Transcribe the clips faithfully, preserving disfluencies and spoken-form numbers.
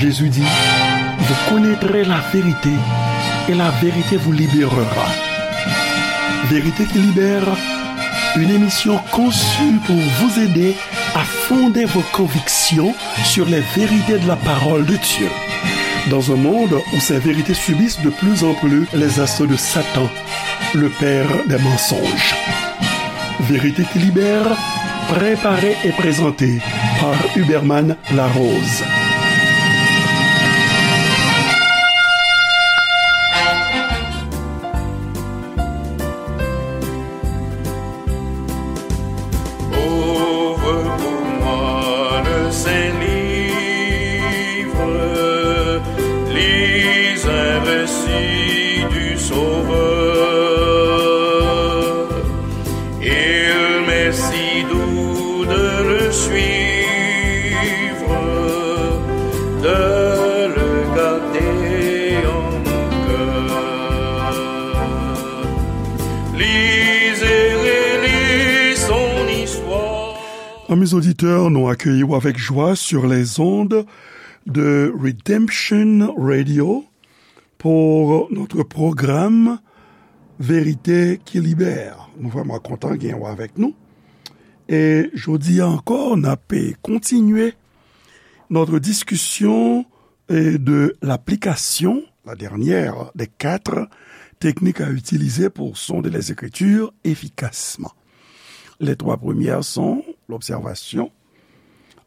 Jésus dit, vous connaîtrez la vérité et la vérité vous libérera. Vérité qui libère, une émission conçue pour vous aider à fonder vos convictions sur les vérités de la parole de Dieu. Dans un monde où ces vérités subissent de plus en plus les assauts de Satan, le père des mensonges. Vérité qui libère, préparée et présentée par Huberman Larose. Ouvre pour moi le Saint-Livre, lis un récit du Sauveur. Il m'est si doux de le suivre, de le garder en mon cœur. Lis et relis son histoire. Amis auditeurs, nous accueillons avec joie sur les ondes de Redemption Radio pour notre programme Vérité qui libère. Nou vrèman kontan gen w avèk nou. E jodi a ankò, n ap kontinye notre discussion et de l'application, la dernière des quatre techniques à utiliser pour sonder les Écritures efficacement. Les trois premières sont l'observation,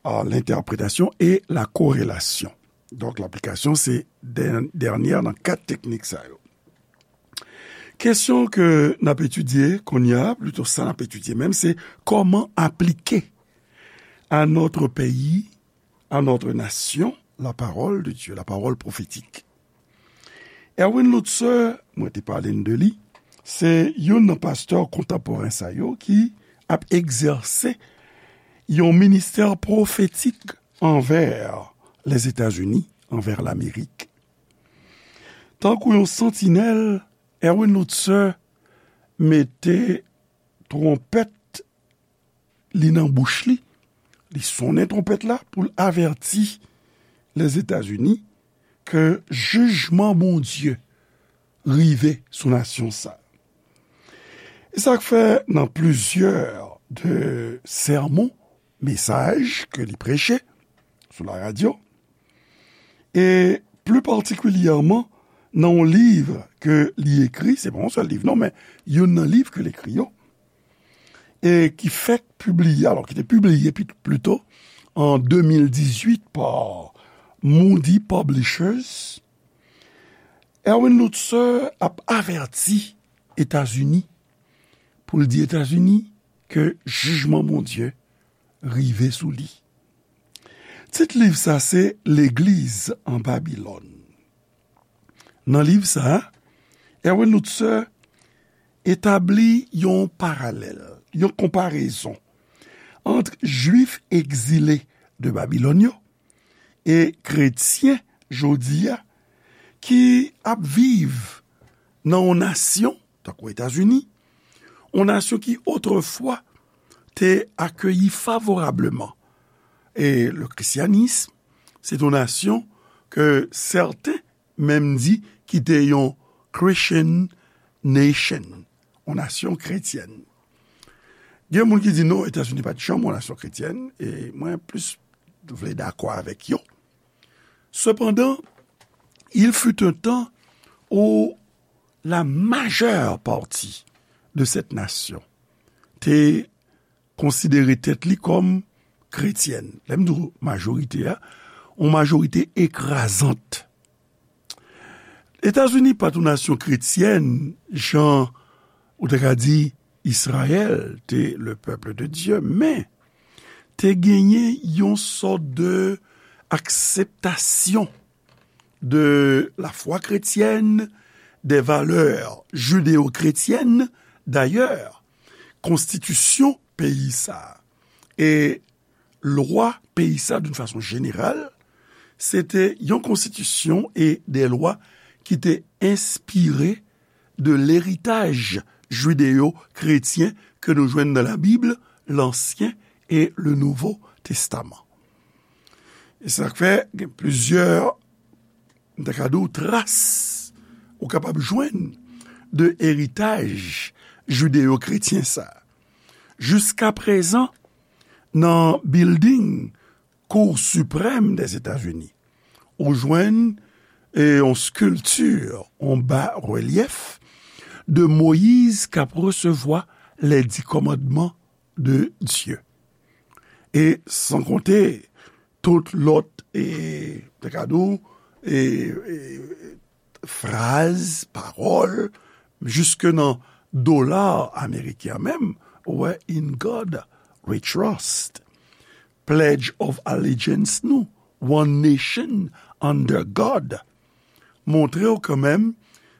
euh, l'interprétation et la corrélation. Donk, laplikasyon se dè-, dènyè nan kat teknik sa yo. Kesyon ke n ap etidye kounye a, plito sa n ap etidye menm, se kòman aplike à notre pays, à notre nation, la parole de Dieu, la parole prophétique. Erwin Lutzer, mwen te pale n de li, se youn nan pastè kontanporen sa yo ki ap egzèse yon ministè pwofetik anvè Lèzetazini, anvè Lamerik. Tankou yon santinèl, Erwin Lutzer mete twonpèt li nan bouch li, li sonnen twonpèt la pou l avèti Lèzetazini ke jijman Bondye rive sou nasyon sa. E sa k fè nan plizyè de sèmon, mesaj ke li preche sou laradyo, e pli patikilyèman nan yon liv ke li ekri, se pa yon sèl liv non, men youn nan liv ke l ekri yo, e ki fèk pibliye, alò, ki te pibliye pi-, plito an de mil dizuit pa Moody Publishers, Erwin Lutzer ap avèti Etazini, pou l di Etazini ke jijman Bondye rive sou li. Tit liv sa se Legliz an Babilòn. Nan liv sa a, Erwin Lutzer etabli yon paralèl, yon konparezon ant Jwif egzile de Babilòn yo e kretyen jodi a ki ap viv nan yon nasyon, tankou Etazini, yon nasyon ki otrefwa te akeyi favorableman e le christianisme, se yon nasyon ke sèten menm di ki te yon Christian nation, yon nasyon kretyèn. Gen moun ki di non, Etazini pa t janm yon nasyon kretyèn, e mwen plis vle dakò avèk yo. Cependant, il fut un temps où la majeure partie de cette nation te konsidere tèt li kòm kretyèn. Lè m di w majorite a, yon majorite ekrazant. Etazini pa t yon nasyon kretyèn, jan ou te ka di Izrayèl te le peuple de Dieu, men te genyen yon sòt de akseptasyon de la foi chrétienne, des valeurs judéo-chrétiennes. D'ailleurs, konstitisyon peyi sa a e lwa peyi sa, d'une façon générale, se te yon konstitisyon e de lwa ki te enspire de leritaj jideo-kretyen ke nou jwenn nan Labib, Lansyen e le Nouvo Testaman. E sa k fè gen plizyè, m ta ka di w, tras ou kapab jwenn de eritaj jideyo-kretyen sa. Jiska prezan, nan bilding Kou Siprèm Dèzetazini, ou jwenn, e, yon skilti, yon ba relyèf de Moyiz k ap resevwa les dix commandements de Dieu. E san konte tout lòt, e, te ka di w, e, e, fraz, pawòl, jiske nan dola ameriken an menm, ou wè, "In God we trust." Pledge of Allegiance nou, "One nation under God." Montre w kanmenm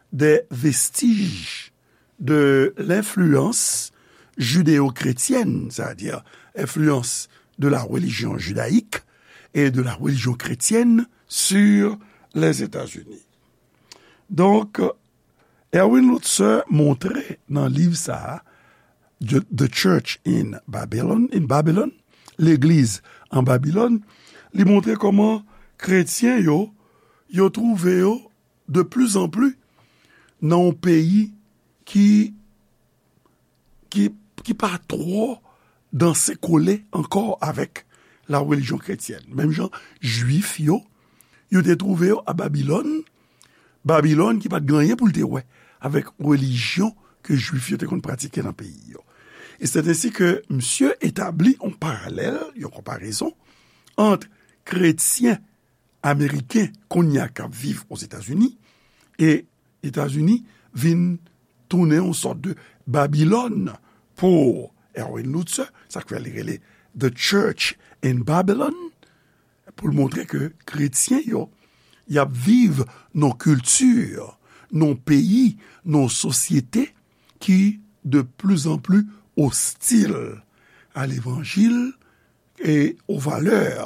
de vestij de lenfliyans jideyo-kretyèn, sètadi enfliyans de la religion judaïque et de la religion chrétienne sur les États-Unis. Donk, Erwin Lutzer montre nan liv sa a, The, The Church in Babylon, in Babylon, Legliz an Babilòn, li montre kòman kretyen yo, yo twouve yo de pli an pli nan yon peyi ki, ki, ki pa twò danse kole ankò avèk la relijyon kretyèn. Menm jan Jwif yo, yo te twouve yo a Babilòn, Babilòn ki pa t gen anyen pou l te wè avèk relijyon ke Jwif yo te konn pratike nan peyi yo. E se ensi ke misye etabli yon paralèl, yon konparezon ant kretyen ameriken kounye a k ap viv Ozetazini, e Etazini vin tounen yon sòt de Babilòn pou Erwin Lutzer, sa k fè li rele The Church in Babylon, pou l montre ke kretyen yo, y ap viv nan kilti, nan peyi, nan sosyete ki de pli an pli ostil a levanjil e o valè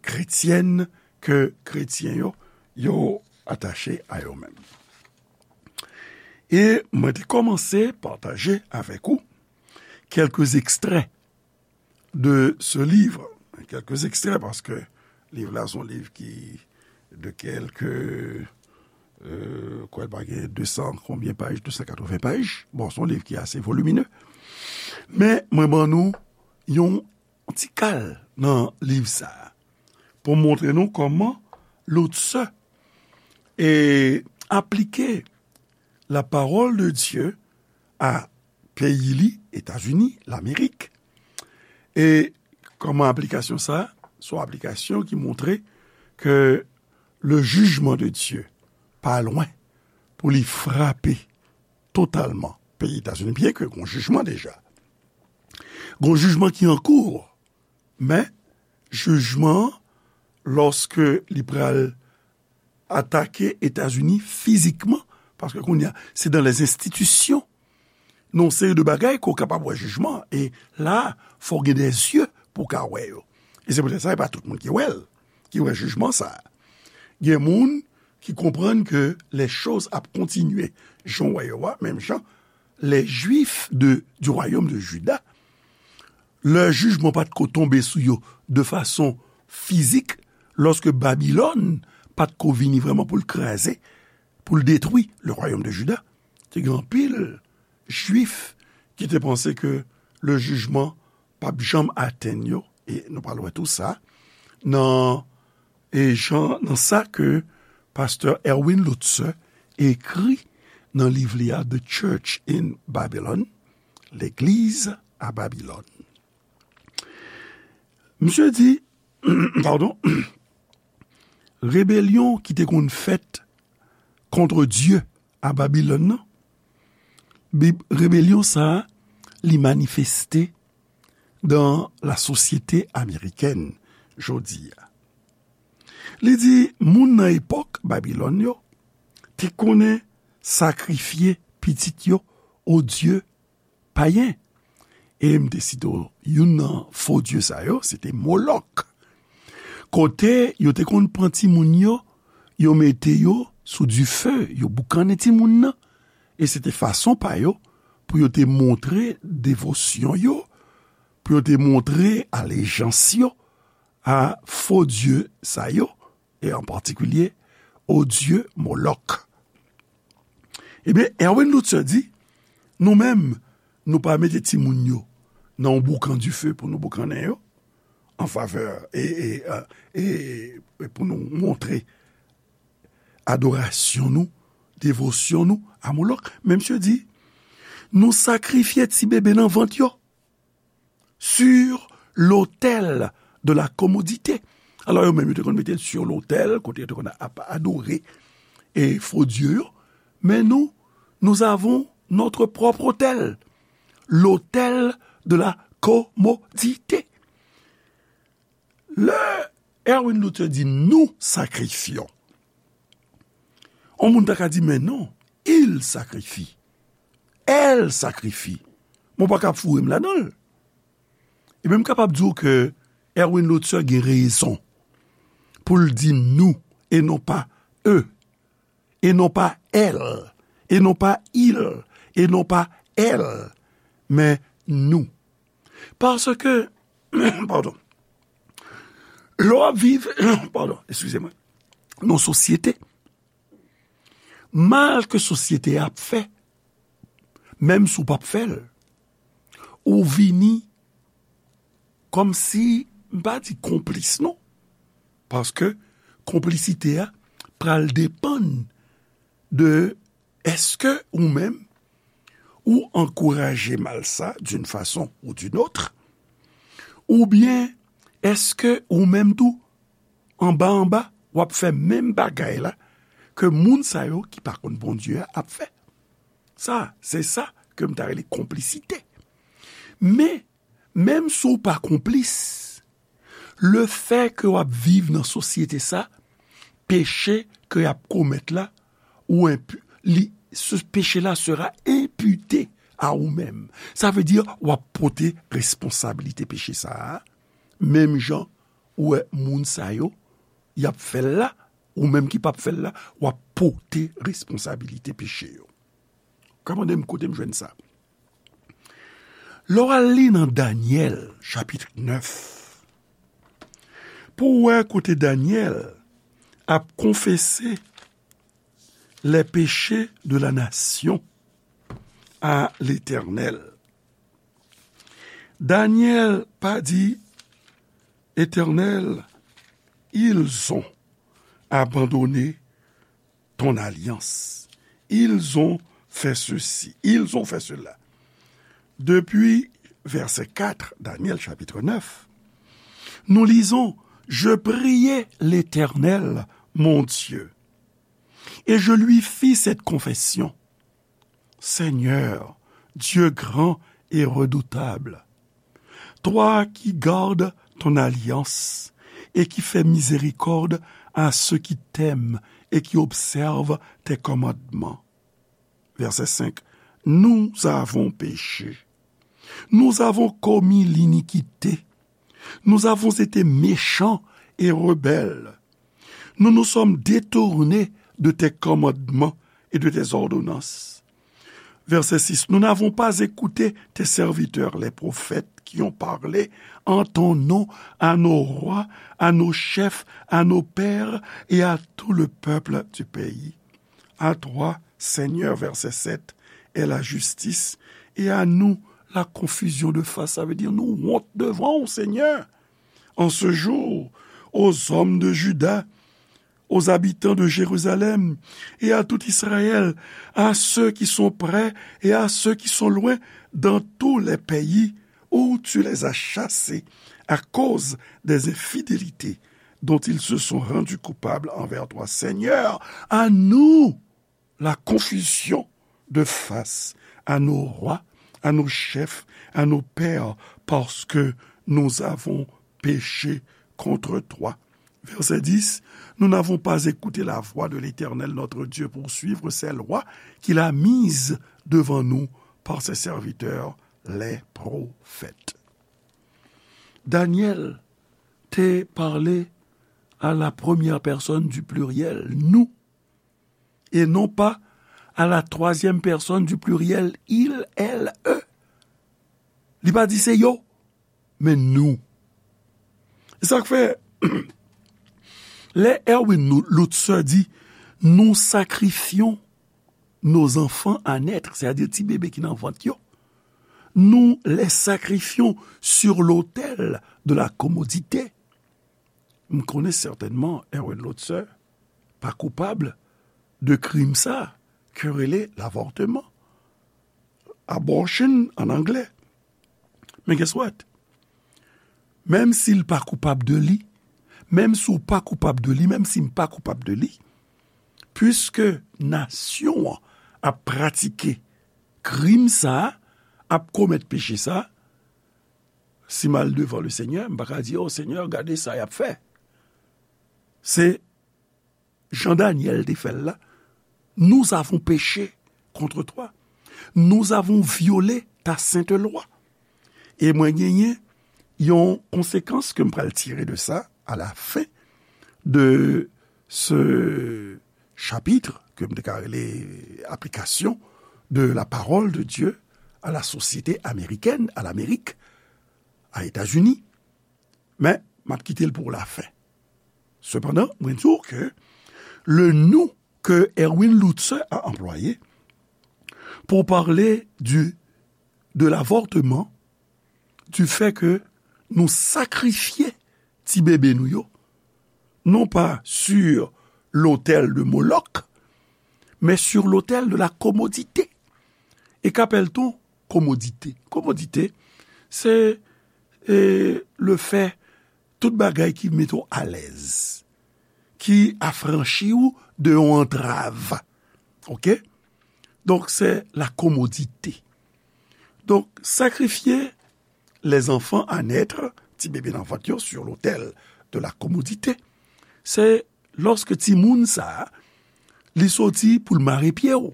kretyèn ke kretyen yo, yo atache a yo menm. E mwen te kòmanse pataje avèk ou kèlke ekstrè de ce livre. Kèlke ekstrè, paske liv la se yon liv ki de kèlke, euh, kwè l pa gen de san konbyen paj, de san katreven paj. Bon, se yon liv ki ase voliminè. Men mwen ban nou yon ti kal nan liv sa a pou montre nou kòman Lutzer, e, aplike la parole de Dieu a peyi li, Etazini, Lamerik. E kòman aplikasyon sa a? Se yon aplikasyon ki montre ke le jugement de Dieu pa lwen pou li frape totalman peyi Etazini, byen ke gon jijman deja. Gon jijman ki an kou, men jijman an, lòske li pral atake Etazini fizikman, paske kounye a, se dans les institutions, nan yon seri de bagay ke w kapab wè jijman, e la, fò w gen de zye pou w ka wè yo. E se poutèt sa, e pa tout moun ki wè l, ki wè jijman sa a. Gen moun ki konprann ke les choses ap kontinye jan w wè yo a, menm jan les Juifs de, du royaume de Juda, lè jijman pa t ko tonbe sou yo de fason fizik, lòske Babilòn pa t ko vini vrèman pou l kraze, pou l detwi le royaume de Juda, te gen anpil Jwif ki te panse ke le jijman p ap janm atenn yo, e nou pral wè tou sa nan, e jan, nan sa ke pastè Erwin Lutzer ekri nan liv li a The Church in Babylon, Legliz a Babilòn. Misye di, padon, rebelyon ki te konn fèt contre Dieu a Babilòn nan, Bib, rebelyon sa a, li manifeste dans la société américaine jodi a. Li di, moun nan epòk Babilòn yo te konnen sakrifye pitit yo o dye payen. E m te site w, youn nan fo dye sa yo, se te Molòk. Kote yo te konn pran timoun yo, yo mete yo sou dife, yo boukannen timoun nan. E se te fason pa yo pou yo te montre devosyon yo, pou yo te montre alejans yo a fo dye sa yo, e an patikilye o dye Molòk. Ebyen, Erwin Lutzer di, nou menm, nou pa mete timoun yo nan yon boukan dife pou nou boukannen yo, an favè, e, e, e, e, e pou nou montre adorasyon nou, devosyon nou a Molòk. Men misye di, nou sakrifye ti bebe nan vant yo sur l'autel de la commodité. Alò, yo menm, yo te konn mete l sur l'autel, kote yo te konn ap adore e fo dye yo. Men nou, nous avons notre propre autel, l'autel de la commodité. Lè Erwin Luther di nou sakrifyon, yon moun ta ka di, men non, il sacrifie, elle sacrifie. Mwen pa ka foure m ladan l. Ebyen, m kapab di w ke Erwin Luther gen rezon pou l di nou e non pa eux, e non pa elle, e non pa il, e non pa elle, men nou. Paske, padon, lè w ap viv, padon, eskize mwen, nan sosyete, mal ke sosyete a ap fè, menm si w p ap fè l, ou vini kòmsi, m pa di konplis non, paske konplisite a pral depann de èske ou menm ou ankouraje mal sa d'une façon ou d'une autre, oubyen èske ou menm tou anba anba w ap fè menm bagay la ke moun sa yo ki pa konn Bondye a ap fè. Sa, se sa ke m ta rele konplisite. Men, menm si w pa konplis, lefè ke w ap viv nan sosyete sa, peche ke y ap komèt la, ou enpi, li, ce péché-là sera imputé à ou menm. Sa vle di, w ap pote responsabilite peche sa a, menm jan ou wè moun sa yo, y ap fè l la, ou menm ki p ap fè l la, w ap pote responsabilite peche yo. Ka mande m kote m jwenn sa. Lè w al li nan Danyèl, chapit nèf, pou w wè kote Danyèl ap konfese les péchés de la nation à l'Éternel. Danyèl pa di, Éternel, ils ont abandonné ton alliance. Ils ont fait ceci, ils ont fait cela. Depuis verset quatre, Daniel chapitre neuf, nous lisons, je priai l'Éternel, mon Dieu, et je lui fis cette confession. Seigneur, Dieu grand et redoutable, toi qui gardes ton alliance et qui fais miséricorde à ceux qui t'aiment et qui observent tes commandements. Verset cinq. Nous avons péché. Nous avons commis l'iniquité. Nous avons été méchants et rebelles. Nous nous sommes détournés de tes commandements et de tes ordonnances. Verset six. Nous n'avons pas écouté tes serviteurs, les prophètes, qui ont parlé en ton nom à nos rois, à nos chefs, à nos pères et à tout le peuple du pays. À toi, Seigneur, verset sept, est la justice, et à nous la confusion de face. Sa vle di nou wont devan w, Senyè. En ce jour, aux hommes de Juda, aux habitants de Jérusalem et à tout Israël, à ceux qui sont près et à ceux qui sont loin, dans tous les pays où tu les as chassés à cause des infidélités dont ils se sont rendus coupables envers toi. Seigneur, à nous la confusion de face à nos rois, à nos chefs, à nos pères, parce que nous avons péché contre toi. Verset dix, nous n'avons pas écouté la voix de l'Éternel notre Dieu pour suivre ses lois qu'il a mises devant nous par ses serviteurs, les prophètes. Daniel te pale à la première personne du pluriel, nous, et non pas à la troisième personne du pluriel, il, elle, eux. Li pa di se yo, men nou. Sa k fè, lè Erwin Lutzer di, nous sacrifions nos enfants à naître, c'est-à-dire ti bebe ki nan vant yo, nous les sacrifions sur l'autel de la commodité. M konnen sètènman Erwin Lutzer pa koupab de krim sa ke rele l'avortement, abortion an anglè. Men guess what? Menm si l pa koupab de li, menm si w pa koupab de li, menm si m pa koupab de li, piske nasyon an ap pratike krim sa a, ap komèt peche sa a, si m al devan le Senyè, m pa ka di, "O Senyè, gade sa y ap fè." Se jan Danyèl te fè l la, nous avons péché contre toi. Nous avons violé ta sainte loi. E mwen genyen yon konsekans ke m pral tire de sa à la fin de ce chapitre, ke m te ka rele application de la parole de Dieu à la société américaine, à l'Amérique, à États-Unis. Men, m ap kite l pou lafen. Sepandan, mwen di w ke le nous que Erwin Lutzer a employé pour parler du, de l'avortement, du fait que nou sakrifye ti bebe nou yo, non pa sur l'autel de Moloch, men sur l'autel de la commodité. E k apèl t on komodite? Komodite, se, e, le fè tout bagay ki mete w alèz, ki afranchi w de yon antrav. Oke? Donk, se la komodite. Donk, sakrifye les enfants à naître, ti bebe nan vant yo, sur l'autel de la commodité, se lòske timoun sa a, li soti pou l mare pye w,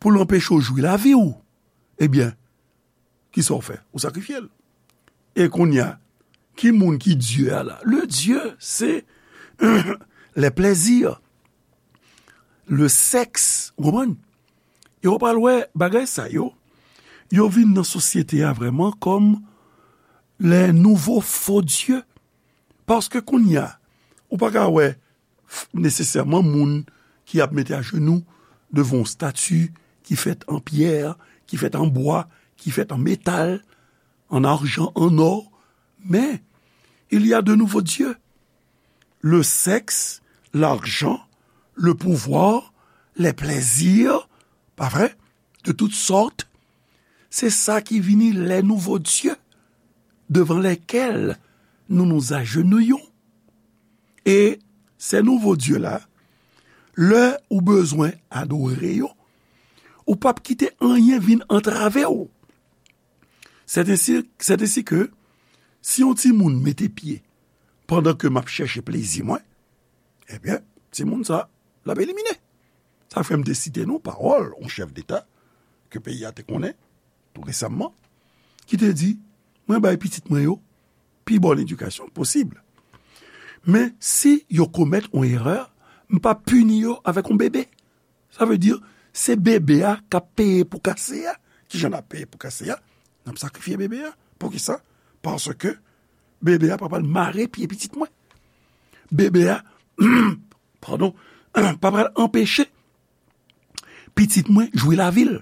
pou l anpeche w jwi lavi w, ebyen, kisa w fè? Ou sakrifye l. E kounye a, ki moun ki Dye a la? Le Dieu, se les plaisirs, le sexe, ou konprann? E w pral wè bagay sa yo, yo vin nan sosyete a vrèman kòm les nouveaux faux dieux. Paske kounye a, ou pa ka wè f-, nesesèman moun ki ap mete ajenou devan yon stati ki fèt an pyè, ki fèt an bwa, ki fèt an metal, an ajan, an ò. Men, il y a de nouveaux dieux. Le sexe, l'argent, le pouvoir, les plaisirs, pa vre? De toutes sortes. Se sa ki vini les nouveaux dieux devant lesquels nous nous agenouillons. E ces nouveaux dieux là, lè ou bezwen adore yo, ou p ap kite anyen vin antrave w. C'est ainsi, c'est ainsi que si yon timoun mete pye pandan ke m ap chèche plezi mwen, ebyen, timoun sa, l ap elimine. Sa fè m te site nou pawòl yon chèf deta ke peyi a te konnen tou resamman, ki te di, "Mwen bay pitit mwen yo pi bòn edikasyon posib. Men si yo komèt yon erè, m p ap pini yo avèk yon bebe." Sa vle di, se bebe a k ap peye pou kase a. Kijan n ap peye pou kase a? N ap sakrifye bebe a. Poukisa? Paske bebe a pa pral mare pye pitit mwen. Bebe a, padon, pa pral anpeche pitit mwen jwi lavi l.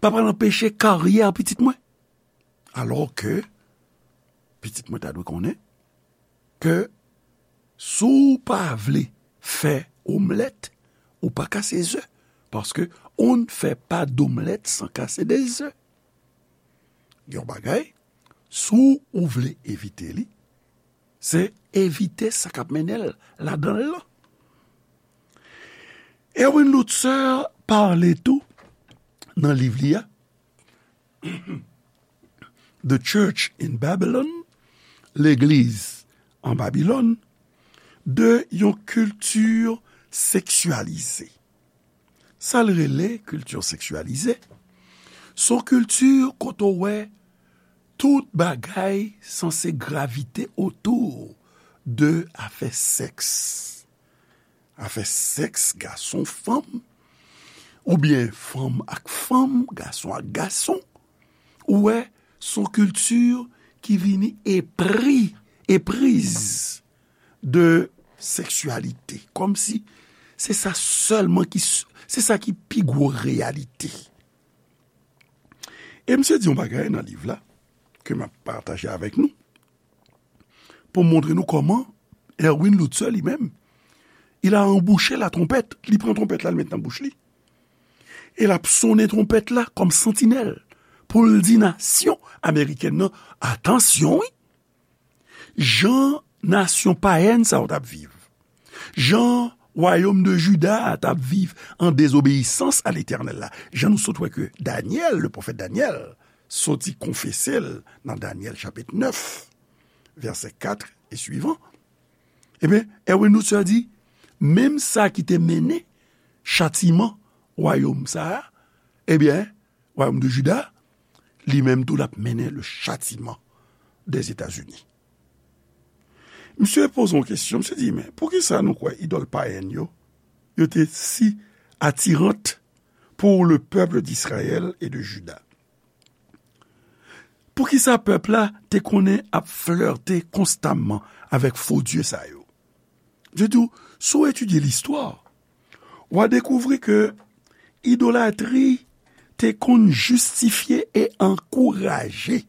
Pa pral anpeche karyè pitit mwen. Alò ke pitit mwen ta dwe konnen ke si w pa vle fè omlèt, ou pa kase ze. Paske on ne fait pas d'omelette sans casser des œufs. Yon bagay, si w vle evite li, se evite sa k ap mennen l ladan l lan. Erwin Lutzer pale tou nan liv li a, The Church in Babylon, Legliz an Babilòn, de yon kilti seksyalize. Sa l rele kilti seksyalize, se yon kilti kote w wè tout bagay sanse gravite otou de afè sèks. Afè sèks gason fanm, oubyen fanm ak fanm, gason ak gason. Ou wè, se yon kilti ki vini epri epriz de seksyalite. Kòmsi se sa sèlman ki, se sa ki pi gwo reyalite. E misye di yon bagay nan liv la, ke m ap pataje avèk nou, pou montre nou kòman Erwin Lutzer li menm, il a embouché la trompette, li pran twonpèt la, li met nan bouch li. E l ap sonnen twonpèt la kòm santinèl, pou l di nasyon amerikèn nan, atansyon wi, jan nasyon payèn sa yo t ap viv, jan wayòm de Jida a t ap viv an dezobeyisans a Letènèl la, jan nou sot wè ke Danyèl, le pwofèt Danyèl, soti konfese l nan Danyèl chapit nèf, vèsè kat e swivan, ebyen, Erwin Lutzer di, menm sa ki te mennen chatiman wayòm sa a, ebyen, wayòm de Jida, li menm tou l ap mennen le chatiman dèzetazini. Misye poze yon kesyon, misye di, men poukisa nou kwè idòl payèn yo, yo te si atirant pour le peuple d'Israël et de Juda? Poukisa pèp la te konnen ap flète konstamman avèk fo dye sa yo? Di tou, si w etidye listwa, w a dekouvri ke idolatri te konn jistifye e ankouraje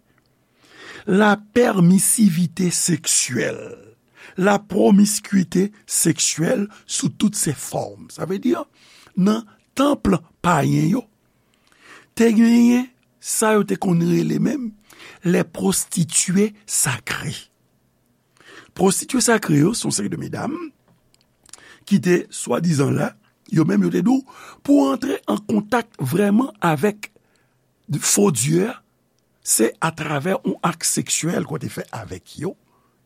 lapèmisivite seksyèl, lapwomiskite seksyèl sou tout se fòm. Sa vle di, nan tanp payen yo, te genyen sa yo te konn rele menm les prostituées sacrées. Pwostitye sakre yo se yon seri de medam ki te swadizan la, yo menm yo te di w, pou w antre an kontak vrèman avèk fo dye a, se atravè yon ak seksyèl ke w te fè avèk yo,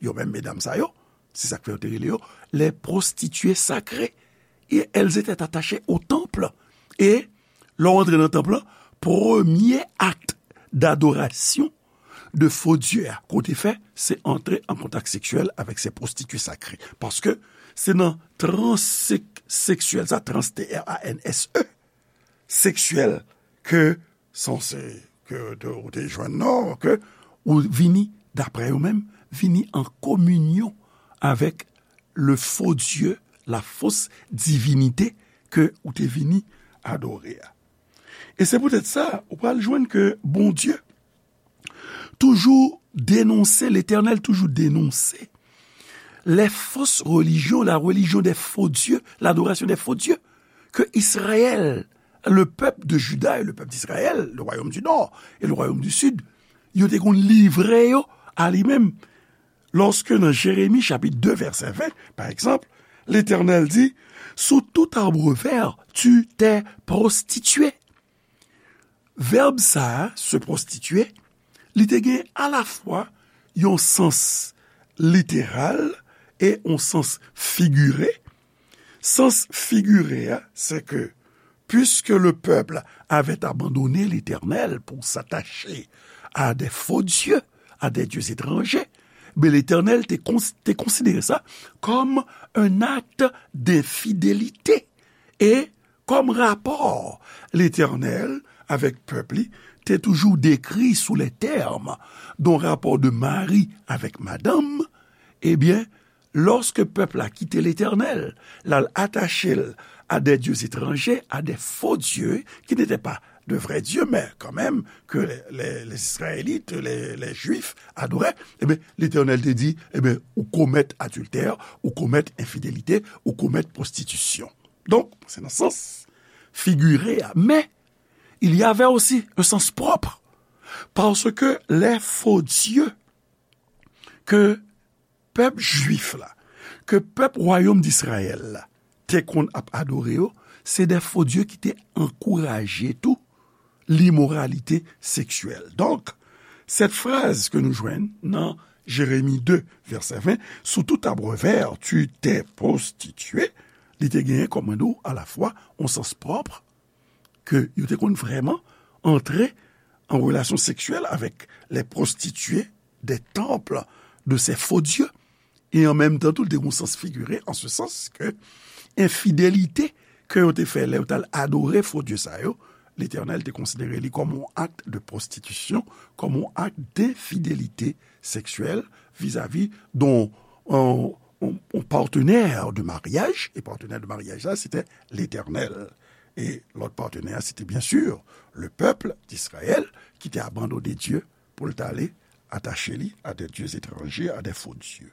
yo menm medam sa yo, se sa k fè yo te rele yo les prostituées sacrées, et elles étaient attachées au temple. E lè w antre nan tanp lan, premye ak dadorasyon de fo dye a ke w te fè, se antre an kontak seksyèl avèk se pwostitye sakre. Paske se nan trans sek-, seksyèl sa, trans, T R A N S E, seksyèl ke sanse ke te, ou te jwenn nan, ke ou vini, daprè yo menm, vini an kominyon avèk le faux Dieu, la fausse divinité ke ou te vini adore a. E se poutèt sa, ou pral jwenn ke Bondye toujou denonse, Letènèl toujou denonse les fausses religions, la religion des faux dieux, l'adoration des faux dieux, ke Israël, le peuple de Juda et le peuple d'Israël, le royaume du nord et le royaume du sud, yo te konn livre yo a li menm. Lòske nan Jeremi chapit de vèsè ven, pa egzanp, Letènèl di, sous tout arbre vert, tu t'es prostitué. Vèb sa a, se pwostitye, li te gen alafwa yon sans literal e yon sans figire. Sans figire a, se ke, puisque le peuple avait abandonné l'Éternel pour s'attacher à des faux dieux, à des dieux étrangers, ben Letènèl te kons-, te konsidere sa kòm un acte d'infidélité. E kòm rapò Letènèl avèk pèp li te toujou dekri sou le tèm d'un rapport de mari avec madame, ebyen, lòske pèp la kite Letènèl, l al atache l à des dieux étrangers, à des faux dieux, qui n'étaient pas de vrais dieux, mais quand même que les, les, les Israélites, les, les Juifs adoraient, ebyen, Letènèl te di, ebyen, ou komèt adiltè, ou komèt enfidélite, ou komèt pwostitisyon. Donk, se nan sans figire a. Men, il y avait aussi un sens propre. Paske les faux dieux ke pèp jwif la, ke pèp wayòm d'Israël la te konn ap adore yo, se de fo dye ki te ankouraje tou limoralite seksyèl. Donk, cette phrase ke nou jwenn nan Jeremi de, vèsè ven, sous tout arbre vert tu t'es prostitué, li te genyen, kòm mwen di w, alafwa yon sans pwòp, ke yo te konn vrèman antre an relasyon seksyèl avèk les prostituées des temples de ces faux dieux. E an menm tan tou, l te gen yon sans figire, an se sans ke enfidelite ke yo te fè lè yo t al adore fo dye sa yo, Letènèl te konsidere li kòm yon ak de pwostitisyon, kòm yon ak denfidelite seksyèl vizavi don yon, yon, yon partenè de maryaj, e partenè de maryaj la, se te Letènèl. E lòt partenè a, se te byen si le pèp d'Izrayèl ki te abandone Dye pou l t ale atache li a de dye etranje, a de fo dye.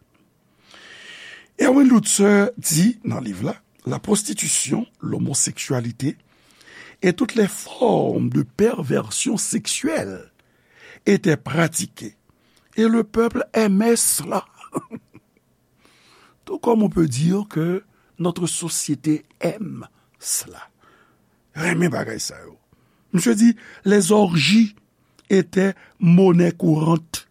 Erwin Lutzer di nan liv la, la prostitution, l'homosexualité et toutes les formes de perversion sexuelle étaient pratiquées et le peuple aimait cela. Tout comme on peut dire que notre société aime cela. Renmen bagay sa yo. Misye di, les orgies étaient monnaie courante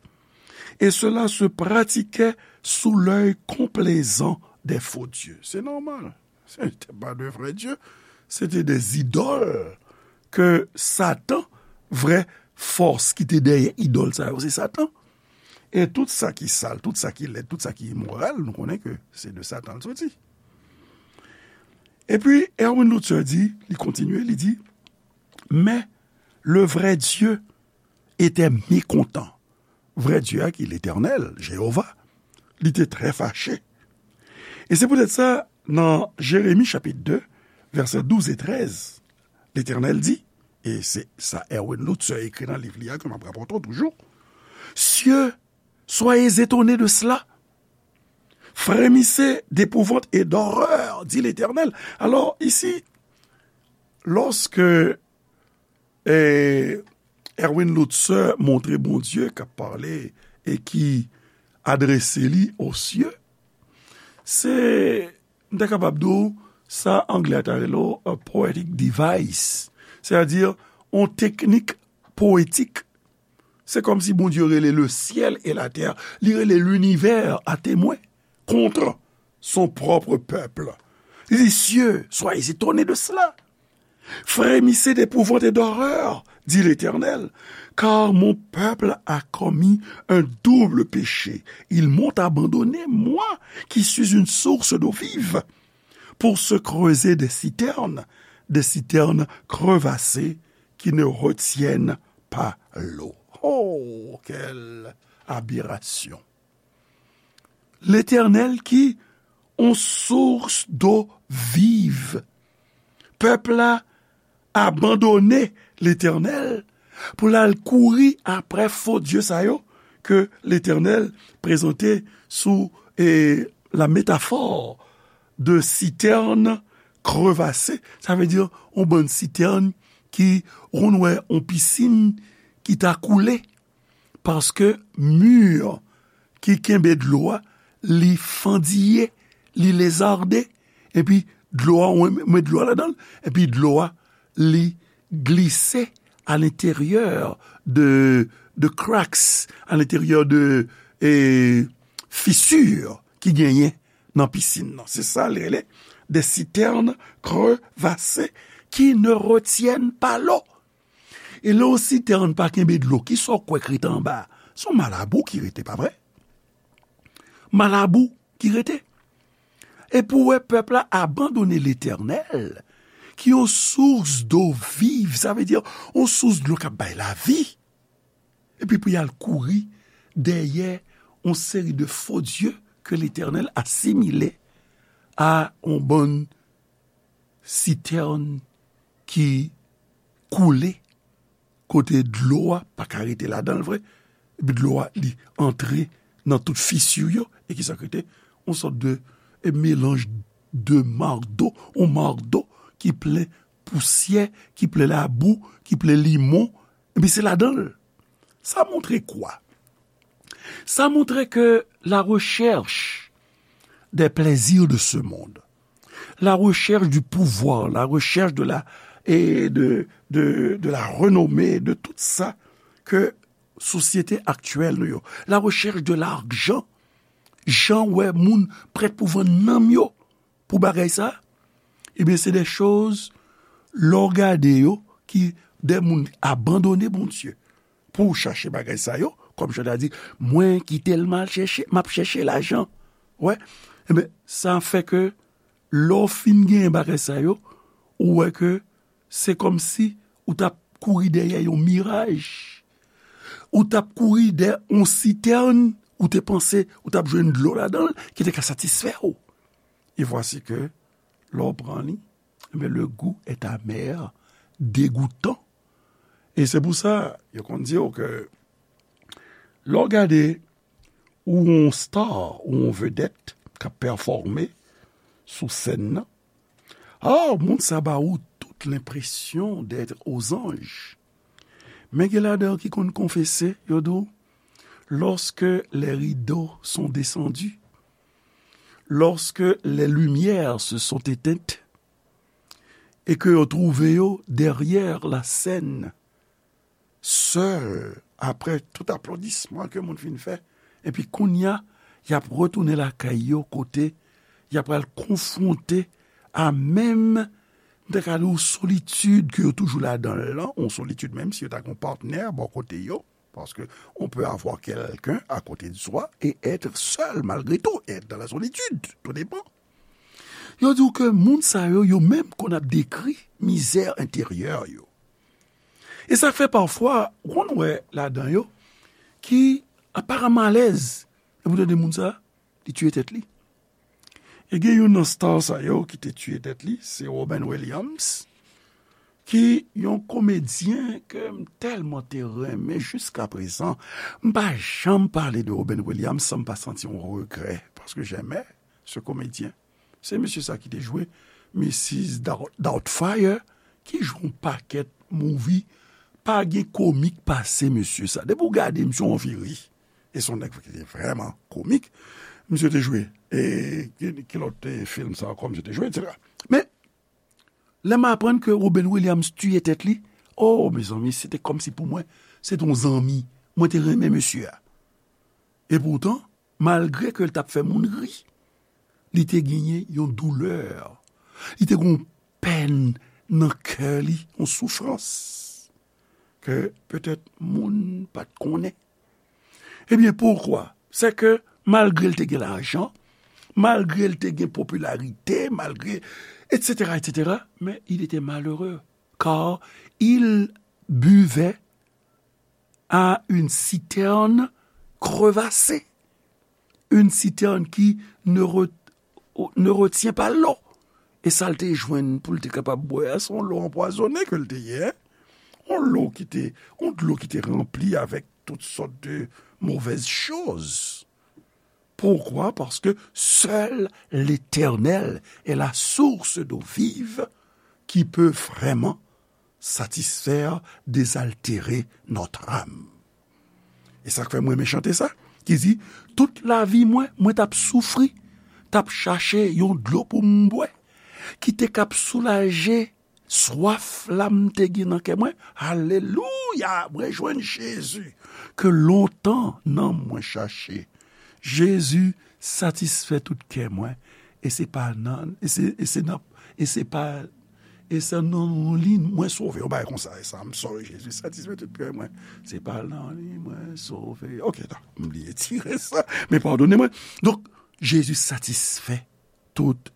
et cela se pratiquait sous l'œil complaisant des faux dieux. Se nòmal. Se te pa de vrè dye. Se te de zidòl ke Satan, vrè fòs ki te dèyè idòl sa yo, se Satan. E tout sa ki sal, tout sa ki lèd, tout sa ki imoral, nou konnen ke se de Satan l soti. Epi, Erwin Lutzer di, li kontinye, li di, mais le vrai Dieu était mécontent. Vrè Dye a ki Letènèl, Jewova, li te trè fache. E se poutèt sa, nan Jeremi chapit de, vèsè douz e trèz, Letènèl di, e se sa Erwin Lutzer ekri nan liv li a ke m ap rapòte w toujou, Cieux, soyez étonnés de cela. Frémissez d'épouvante et d'horreur, dit l'Éternel. Alors, ici, lorsque e, Erwin Lutzer montre Bondye k ap pale e ki adrese li o sye. Se, m ta kapab di w, sa anglè a ta rele w a poetic device, sètadi yon teknik powetik. Se kòmsi Bondye rele le ciel et la terre, li rele linivè a temwen kont son pwòp pèp. Li di, Cieux, soyez étonnés de cela. Frémissez d'épouvante et d'horreur, dit l'Éternel, car mon peuple a commis un double péché. Ils m'ont abandonné, moi, qui suis une source d'eau vive, pour se creuser des citernes, des citernes crevassées qui ne retiennent pas l'eau. Oh, quelle aberration! Letènèl ki yon source d'eau vive. Pèp la abandone Letènèl pou l al kouri aprè fo dye sa yo ke Letènèl prezante sou, e, la métaphore de citerne crevassée. Sa vle di yon bann sitèn ki, ou konn wè yon pisin ki ta koule. Paske mi ki kenbe dlo a, li fandiye, li lezarde, epi dlo a, ou met dlo a ladan l, epi dlo a, li glise à l'intérieur de, de cracks, à l'intérieur de, e, fissure ki genyen nan pisin nan. Se sa l rele des citernes crevassées qui ne retiennent pas l'eau. E lè yon sitèn pa kenbe dlo, kisa w kwè k rete anba a? Se yon malabou ki rete, pa vre? Malabou ki rete. Epi w wè pèp la abandone Letènèl, ki yon source d'eau vive, sa vle di yon source dlo k ap bay lavi. Epi pou y al kouri dèyè yon seri de fo dye ke Letènèl asimile a yon bann sitèn ki koule, kote dlo a pa ka rete ladan l vre, epi dlo a li antre nan tout fisi yo, e kisa k rete? Yon sòt de, e, melanj de mardo, yon mardo ki plen pousyè, ki plen labou, ki plen limon, epi se ladan l. Sa montre kwa? Sa montre ke la recherche des plaisirs de ce monde, la recherche du pouvoir, la recherche de la, et de, de, de la renommée, de tout sa ke sosyete aktyèl nou yo, la recherche de l'argent, jan wè moun prèt pou vann nanm yo pou bagay sa, ebyen, se de choz, lè w gade yo, ki de moun abandone Bondye pou chache bagay sa yo, kòm Jan ta di, mwen ki tèlman al chèche, m ap chèche lajan. Wè, ebyen, sa fè ke lè w fin genyen bagay sa yo, ou wè ke se kòmsi ou t ap kouri dèyè yon miraj, ou t ap kouri dèyè yon sitèn, ou te panse ou t ap jwenn dlo ladan l ki te ka satisfè w. E vwasi ke lè w pran li, enben, le goût est amer, degoutan. E se pou sa, yo konn di w ke lè w gade ou yon star, ou yon vedèt k ap pèfòme sou sèn nan, ah, moun sa ba ou tout lenpresyon d'être aux anges. Men gen ladan yo ki konn konfese, yo di w, lorsque les rideaux sont descendus, lorsque les lumières se sont éteintes, e ke yo twouve yo derrière la scène, sèl, apre tout aplodisman ke moun fin fè, epi kounye a, y ap retounen lakay yo kote y ap pral konfwonte a menm, m te ka di w, solitid ke yo toujou ladan l lan, yon solitid menm si yo ta gen yon patnè bò kote yo, parce que on peut avoir quelqu'un à côté de soi et être seul malgré tout, et être dans la solitude, tout dépend. Yo di w ke moun sa yo, yo menm konn ap dekri mizè enteryè yo. E sa k fè pafwa, ou konn wè ladan yo, ki aparamman alèz, epi w tande moun sa, li tiye tèt li. E gen youn nan star sa yo ki te tiye tèt li, se Robin Williams, ki yon komedyen ke m tèlman te renmen jiska prezan. M pa janm pale de Robin Williams san m pa santi yon regrè, paske j'aimais ce comédien. Se mesye sa ki te jwe Missus Dout-, Doubtfire, ki jwe yon pakèt movie. Pa gen komik pase mesye sa. Depi w gade, misye w anvi ri. E se yon nèg ki te vrèman komik. Misye te jwe, e, ki, ki lòt, e, fim sa ankò misye te jwe, etsetera. Men, lè m aprann ke Robin Williams tiye tèt li, oh, mezanmi, se te kòmsi pou mwen, se te yon zanmi. Mwen te renmen mesye a. Epoutan, malgre ke l t ap fè moun ri, li te genyen yon doulè. Li te gen yon pèn nan kè li, yon soufrans ke petèt moun pa t konnen. Ebyen, poukwa? Se ke malgre l te gen lajan, malgre l te gen popilarite, malgre, etsetera, etsetera, men il était malheureux, car il buvait à une citerne crevassée, une citerne qui ne re-, ne retient pas l'eau. E sa l te jwenn pou l te kapab bwè a, se yon lo anpwazonnen ke l te ye, yon lo ki te, yon dlo ki te ranpli avèk tout sòt de mauvaises choses. Pourquoi? Parce que seul l'Éternel est la source d'eau vive qui peut vraiment satisfaire, désaltérer notre âme. E sa k fè mwen renmen chante sa, ki di, tout lavi mwen, mwen t ap soufri, t ap chache yon dlo pou m bwè, ki te k ap soulaje swaf la m te gen nan kè mwen. Alelouya! Mwen jwenn Jezi ke lontan nanm mwen chache. Jezi satisfè tout kè mwen. E se pa nan, e se, e se nan, e se pa, e se nan li mwen sove. Yon bagay konsa, e sa, I'm sorry, Jezi satisfè tout kè mwen. Se pa nan li mwen sove. Ok, ta, m bliye tire sa. Men padone mwen. Donk, Jezi satisfè tout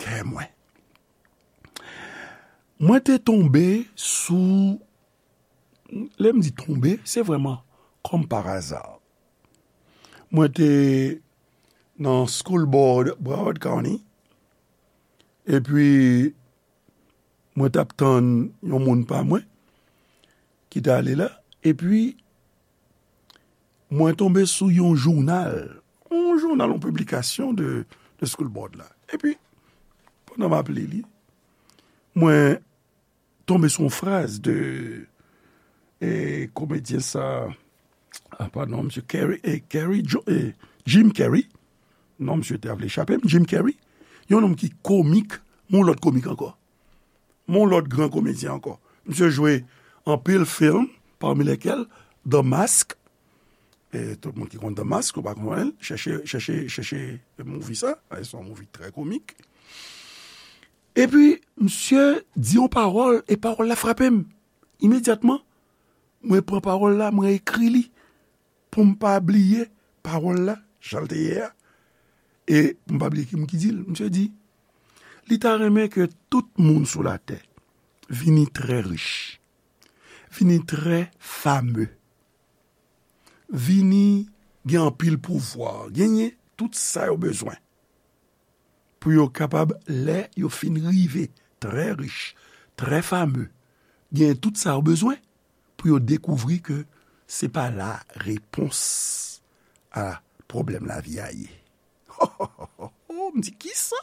kè mwen. Mwen te tonbe sou, lè m di tonbe, se vrèman kòm pa aza. Mwen te nan school board Broward County, epi mwen t ap tann yon moun pa mwen ki t ale la, epi mwen tonbe sou yon jounal, yon jounal, yon piblikasyon de, de school board la. Epi, pandan m ap li li, mwen tonbe sou yon fraz de, e, komedyen sa, a, padon, misye Carrey, e, Carrey Jo-, e, Jim Carrey. Non, misye te vle chape m, Jim Carrey. Yon nonm ki komik, yon lòt komik ankò. Yon lòt gran komedyen ankò. Misye jwe anpil fim, parmi lesquels The Mask. E tout moun ki konn The Mask, ou pa konprann, chèche, chèche, chèche movie sa. E se yon movie trè komik. Epi, misye di yon pawòl, e pawòl la frape m. Imedyatman, mwen pran pawòl la, mwen ekri li pou m pa bliye pawòl la, jan l te ye a. E pou m pa bliye ki moun ki di l. Misye di, li ta renmen ke tout moun sou latè vini trè rich. vini trè fame, vini gen anpil pouvwa, genyen tout sa yo bezwen pou yo kapab, lè yo fin rive trè rich, trè fame, genyen tout sa yo bezwen pou yo dekouvri ke se pa la repons a pwoblèm lavi a ye. M di, kisa?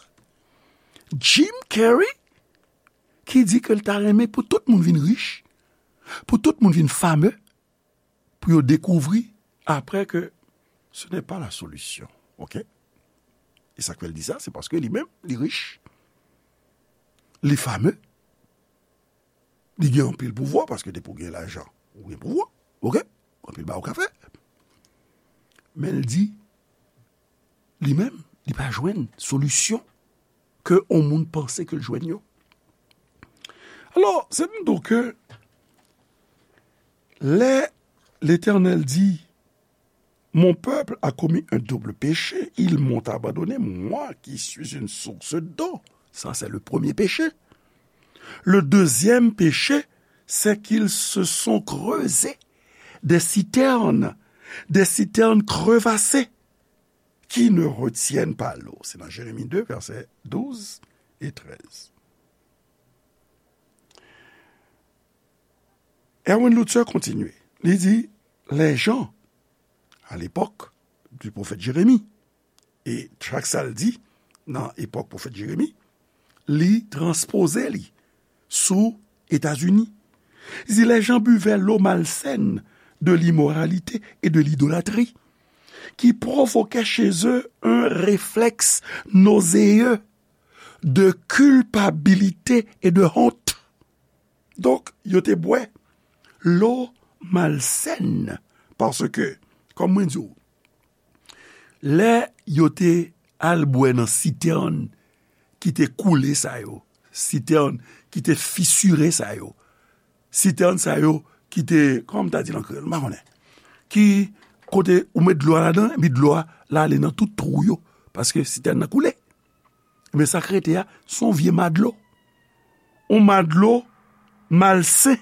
Jim Carrey ki di ke l ta renmen pou tout moun vin rich, pou tout moun vin fame, pou yo dekouvri apre ke ce n'est pas la solution. Oke? E sa k fè l di sa, se paske li menm, li rich, li fame, li gen anpil pouvwa, paske depi w gen lajan, ou gen pouvwa. Oke? Anpil bagay ou ka fè. Men l di, li menm, li pa jwenn solisyon ke yon moun panse ke l jwenn yo. Alò, se m di w ke lè Letènèl di, mon peuple a commis un double péché, ils m'ont abandonné, moi qui suis une source d'eau. Ça, c'est le premier péché. Le deuxième péché, c'est qu'ils se sont creusés des citernes, des citernes crevassées, qui ne retiennent pas l'eau. C'est dans Jérémie deux, versets douze et treize. Erwin Lutzer kontinye. Li di, les gens, à l'époque du prophète Jérémie, e chak sa l di nan epòk pwofèt Jeremi, li transpoze li sou Etazini. Li di, les gens buvaient l'eau malsaine de l'immoralité et de l'idolâtrie, qui provoquait chez eux un réflexe nauséeux de culpabilité et de honte. Donk, yo te bwè lo malsèn, paske, kòm mwen di w, lè yo te al bwè nan sitèn ki te koule sa yo, sitèn ki te fisire sa yo, sitèn sa yo ki te, kòman m ta di l an kreyòl, m pa konnen, ki kote ou met dlo a ladan, epi dlo a la ale nan tout twou yo, paske sitèn nan koule. Men sa k rete a, se yon vye madlo. Yon madlo malsen.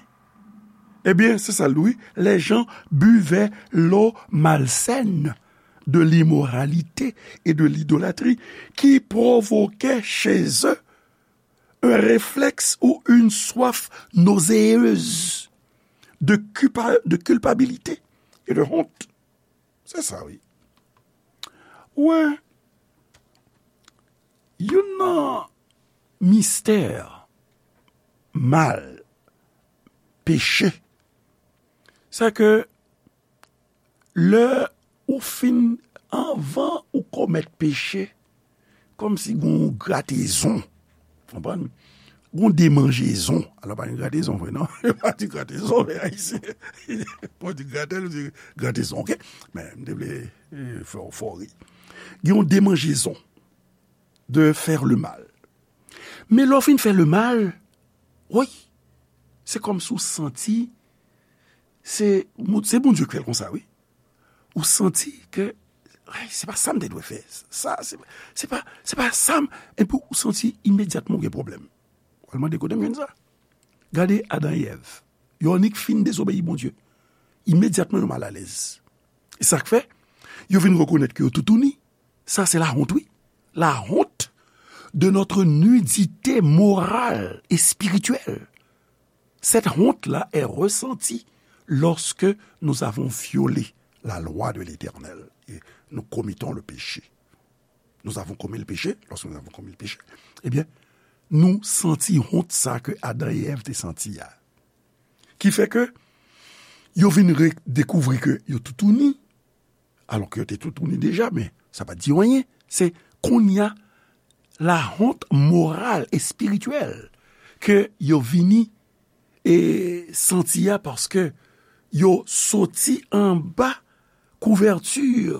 Ebyen, se sa l di, wi. Les gens buvaient l'eau malsaine de l'immoralité et de l'idolâtrie, qui provoquait chez eux un réflexe ou une soif nauséeuse de culpa-, de culpabilité et de honte. Se sa, wi. Ou wè, youn nan mistè mal, peche, se ke lè ou fin, anvan ou komèt peche, kòmsi gen yon gratezon. Konprann? Gen yon demanjezon. Alò, pa gen gratezon vre, non? Yo pa di gratezon, men Ayisyen, bon, di gratèl, ou di gratezon, oke? Men, m te vle, eh, fè w, fè w ri. Gen yon demanjezon de faire le mal. Men lè w fin fè le mal, wi, se kòmsi w santi, se, se Bondye ki fè l konsa, wi. Ou santi ke, ay, se pa sa m te dwe fè. Sa, se, se pa, se pa sa m, epi ou santi imedyatman ou gen pwoblèm. Ou al mande kote m jwenn sa. Gade Adan e Èv. Yo annik fin dezobeyi Bondye. Imedyatman yo malalèz. E sa k fè, yo vin rekonèt ke yo toutouni. Sa se la honte, wi. La honte de notre nudité morale et spirituelle. Cette honte-là est ressentie lorsque nous avons violé la loi de l'Éternel et nous commettons le péché. Nous avons commis le péché, lorsque nous avons commis le péché, ebyen, nou santi wont sa ke Adan e Èv te santi a. Ki fè ke yo vin re-, dekouvri ke yo toutouni, alò ke yo te toutouni deja, men sa pa t di yo anyen. Se kounye a, la honte morale et spirituelle ke yo vini e santi a, paske yo soti anba kouvèti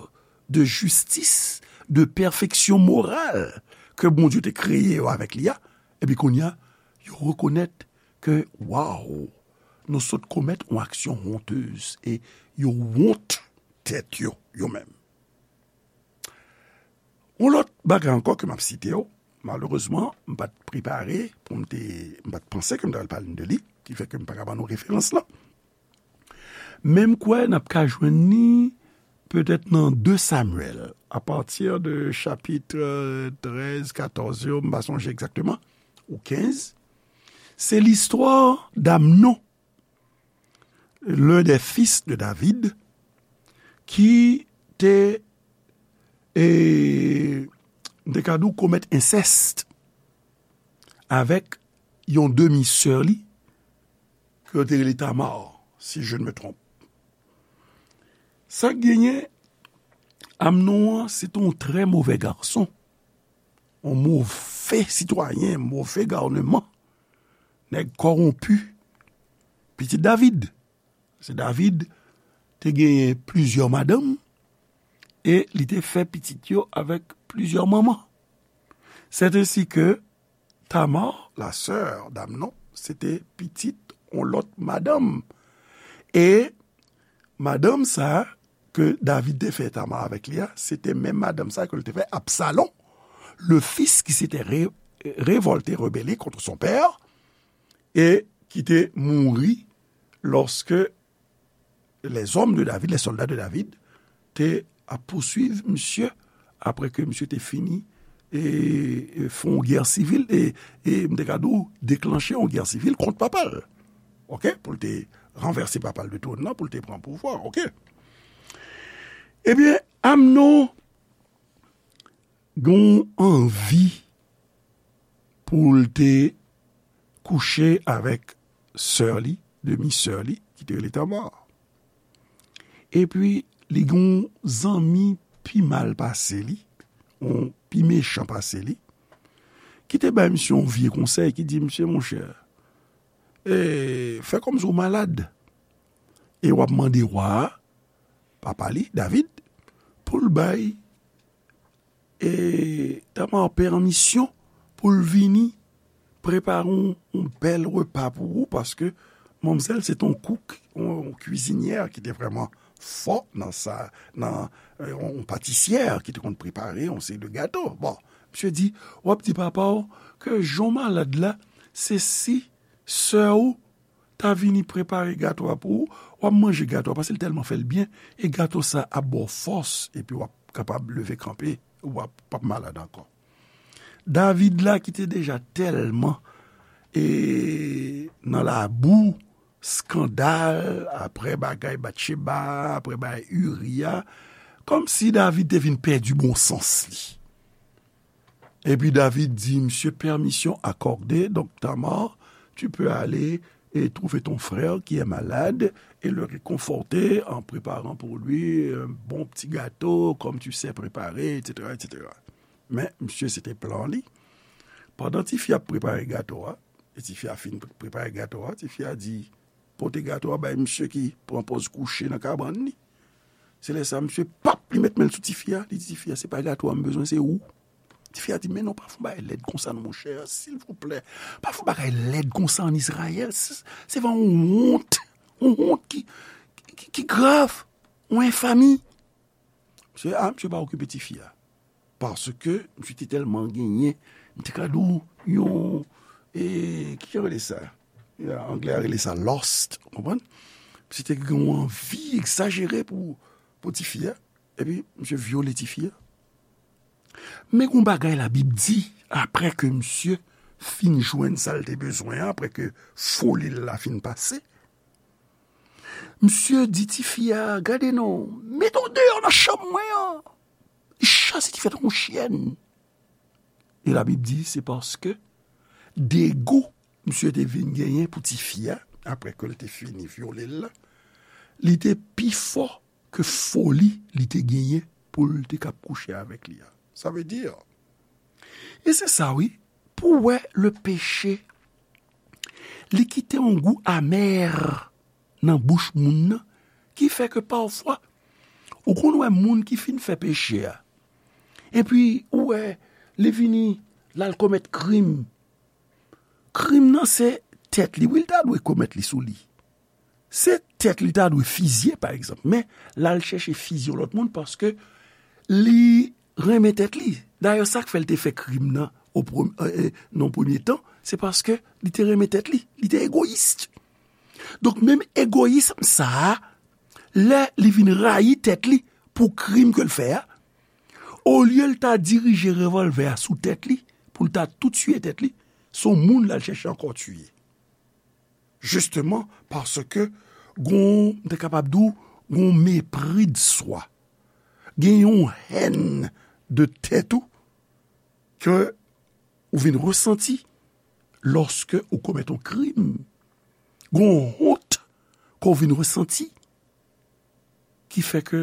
de jistis, de pèfeksyon moral ke Bondye te kreye yo avèk li a, epi kounye a, yo rekonèt ke, waw, nou sot komèt yon aksyon hontez, e yo wont tèt yo, yo menm. Yon lòt bagay ankò ke m ap site yo, malerezman, m pa t prepare pou m te, m pa t panse ke m ta pral pale de li, ki fè ke m pa ka ban nou referans lan. Men m kwè n ap ka jwenn li petèt nan de Samyèl, apati de chapit trèz, katòz yo, m pa sonje egzakteman, ou kenz. Se listwa d'Amnon, l'un des fils de David, ki te, e, m te ka di w, komèt ensèst avèk yon demi sè li, ke yo te rele Tamar, si je ne me trompe. Sa k genyen, Amnon an, se te yon trè movè gason, yon move sitwayen, move gouveman, nèg kòwonpi, pitit David. Se David te genyen plizyè madanm, e li te fè pitit yo avèk plizyè manman. C'est ainsi que Tamar, la sœur d'Amnon, se te pitit yon lòt madanm. E madanm sa ke David te fè Tamar avèk li a, se te menm madanm sa ke l te fè Absalon, le fils qui s'était ré-, révolté, rebelle contre son père, e ki te mouri lòske les hommes de David, les soldats de David, te ap pouswiv misye apre ke misye te fini e, e fè yon gè sivil, e, e m te ka di w, deklanche yon gè sivil kont papa l. Oke? Pou l te ranvèse papa l de twòn nan, pou l te pran pouvwa. Oke? Ebyen, Amnon gen yon anvi pou l te kouche avèk sè li, demi sè li, ki te rele Tamar. Epi, li gen yon zanmi pi mal pase li, yon pi mechan pase li, ki te bay misye yon vye konsèy, ki di misye, monchè, e, fè kòmsi w malad, e w ap mande wa a, papa li, David, pou l bay e Tamar pèmisyon pou l vini prepare yon, yon bèl repa pou ou, paske manmzèl se te yon kouk, yon, yon kwizinyè ki te vrèman fò nan sa, nan, e, yon patisyè ki te konn prepare yon seri de gato. Bon, misye di, w ap di papa w ke jan w malad la, se si sè w ta vini prepare gato a pou ou, w ap manje gato a, paske l tèlman fè l byen, e gato sa ap ba w fòs, epi w ap kapab leve kanpe, w ap, p ap malad ankò. David la, ki te deja tèlman, e, nan labou, eskandal, apre bagay Batcheba, apre bagay Iri a, kòmsi David te vin pèdi bon sans li. Epi David di misye, permission accordée, donc Tamar, tu peux aller et trouver ton frère qui est malade et le réconforter en préparant pour lui un bon petit gâteau, comme tu sais préparer, et cetera, et cetera. Men, misye, se te plan li. Pandan tifi a ap prepare gato a, e tifi a fin pre-, prepare gato a, tifi a di, pote gato a bay misye ki pran pòz kouche nan kabann li. Se lè sa, misye, pap, li met men l sou tifi a, li di tifi a, se pa gato a m bezwen, se ou. Tifi a di, men non, pa fè yon bagay lèd konsa non, monchè, silvouplè. Pa fè yon bagay lèd konsa ann Izrayèl. Se, se vrèman yon wont, yon wont ki, ki, ki grav, yon enfami. Misye, a, misye pa okipe tifi a. Paske misye te tèlman genyen, m te ka di w yon, e, ki yo rele sa? Ya, anglè a rele sa lust, ou konprann? Misye te gen yon anvi egzajere pou, pou tifi a. Epi, misye vyole tifi a. Men gon bagay Labib di, apre ke misye fin jwenn sa l te bezwen an, apre ke foli l la fin pase, misye di tifi a, gade non, mete w deyò nan chanm mwen an. Li chase tifi a tankou yon chyèn. E Labib di, se paske dego misye te vin genyen pou tifi a, apre ke l te fini vyole l la, li te pi fò ke foli li te genyen pou l te kab kouche avèk li a. Sa vle di, e se sa wi, pou w wè le péché, li kite yon gou amè nan bouch moun nan, ki fè ke pafwa, ou konn wè moun ki fin fè peche a, epi ou wè li vini, l al komèt krim. Krim nan se tèt li, wi, l ta dwe komèt li sou li. Se tèt li ta dwe fizye, pa egzanp. Men, l al chèche fizye yon lòt moun paske li renmen tèt li. Dayè, sa k fè l te fè krim nan o prem-, e, e, nan premye tan, se paske li te renmen tèt li. Li te egoyis. Donk, menm egoyism sa a, lè li vin rayi tèt li pou krim ke l fè a, olye l ta dirije revòlvè a sou tèt li, pou l ta tou tiye tèt li, se yon moun l al chèche ankò tiye. Jisteman paske gon, m te kapab di w, gon mépris de soi. Gen yon hèn de tèt ou ke ou vin resanti lòske ou komèt yon krim. Gon wont ke w vin resanti ki fè ke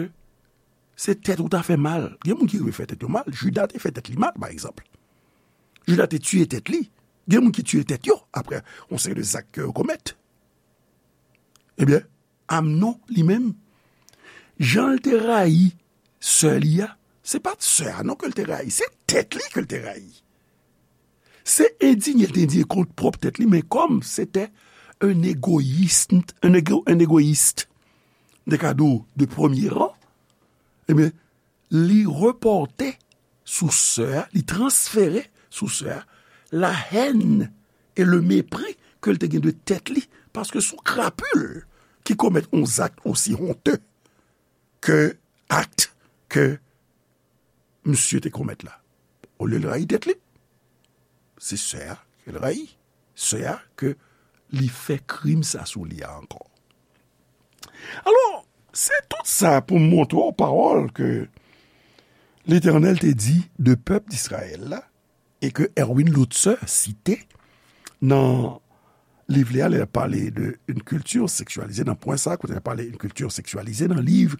se tèt ou ta fè mal. Gen moun ki rive fè tèt yo mal. Jida te fè tèt li mal, pa egzanp. Jida te tiye tèt li. Gen moun ki tiye tèt yo apre yon seri de zak ke yo komèt. Ebyen, Amnon, li menm, jan l te rayi sè li a, se pa t sè a non ke l te rayi, se tèt li ke l te rayi. Se endinye l te endinye kont pwòp tèt li, men kòm se te un égoïste, un égo-, un égoïste, de kado de premier rang, ebyen, li repòte sou sè a, li transfere sou sè a la haine et le mépris ke l te gen de tèt li, paske se yon krapil ki komèt yon zak osi honte ke akt ke misye te komèt la. Olye l rayi tèt li, se sè a ke l rayi. Sè a ke li fè krim sa sou li a ankò. Alò, se tout sa pou m montre w pawòl ke Letènèl te di de pèp Dizrayèl la, e ke Erwin Lutzer site nan liv li a, lè l ap pale de une culture sexualisée, nan pwen sa, kote l ap pale une culture sexualisée, nan liv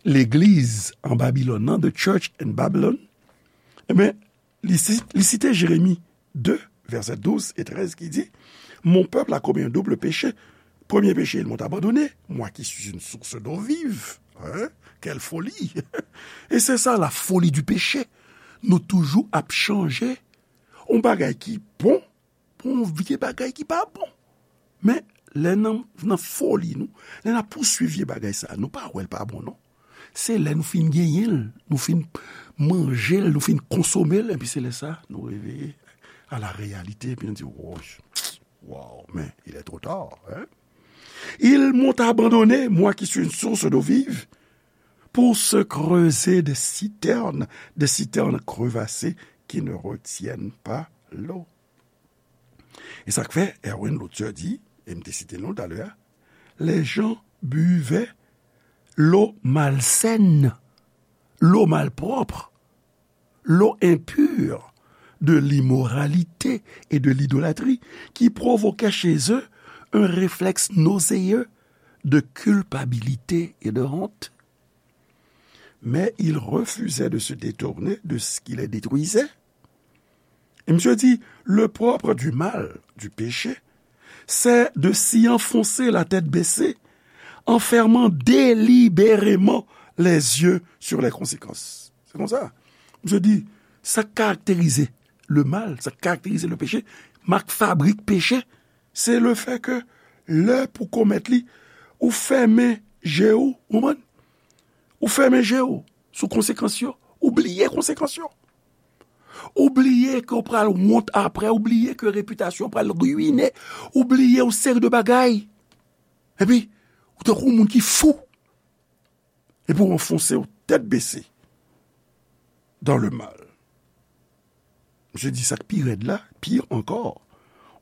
Legliz an Babilòn nan, The Church in Babylon, ebyen, li si-, li site Jeremi de, vèsè douz e trèz ki di, Mon peuple a commis un double péché. Premier péché, ils m'ont abandonné, moi qui suis une source d'eau vive. Hein? Quelle folie! E se sa, la folie du péché. Nou toujou ap chanje yon bagay ki bon pou yon vye bagay ki pa bon. Men, lè nan, nan foli nou, lè n ap pouswiv vye bagay sa, nou pa wè l pa bon, non. Se lè nou fin genyen l, nou fin manje l, nou fin konsome l, epi se lè sa, nou reveye à la réalité, epi nou di, wow, wow, mais il est trop tard, hein? Ils m'ont abandonné, moi qui suis une source d'eau vive, pour se creuser des citernes, des citernes crevassées qui ne retiennent pas l'eau. E sa k fè Erwin Lutzer di, e m te site l non talè a, les gens buvaient l'eau malsaine, l'eau malpropre, l'eau impure de l'immoralité et de l'idolâtrie qui provoquait chez eux un réflexe nauséeux de culpabilité et de honte. Mais ils refusaient de se détourner de ce qui les détruisait. Et monsieur dit, le propre du mal, du péché, c'est de s'y enfoncer la tête baissée, en fermant délibérément les yeux sur les conséquences. Se konsa. Misye di, sa k karakterize le mal, sa k karakterize le péché, mak fabrik peche, se le fè ke lè pou komèt li, ou fèmen je w, ou konprann? Ou fèmen je w sou konsekans yo, ou bliye konsekans yo. Ou bliye ke w pral wont apre, ou bliye ke repitasyon w pral riyine, ou bliye yon seri de bagay. Epi, ou tankou yon moun ki fou. Epi w anfonse w tèt bese dans le mal. Misye di sa k pi rèd la, pire encore,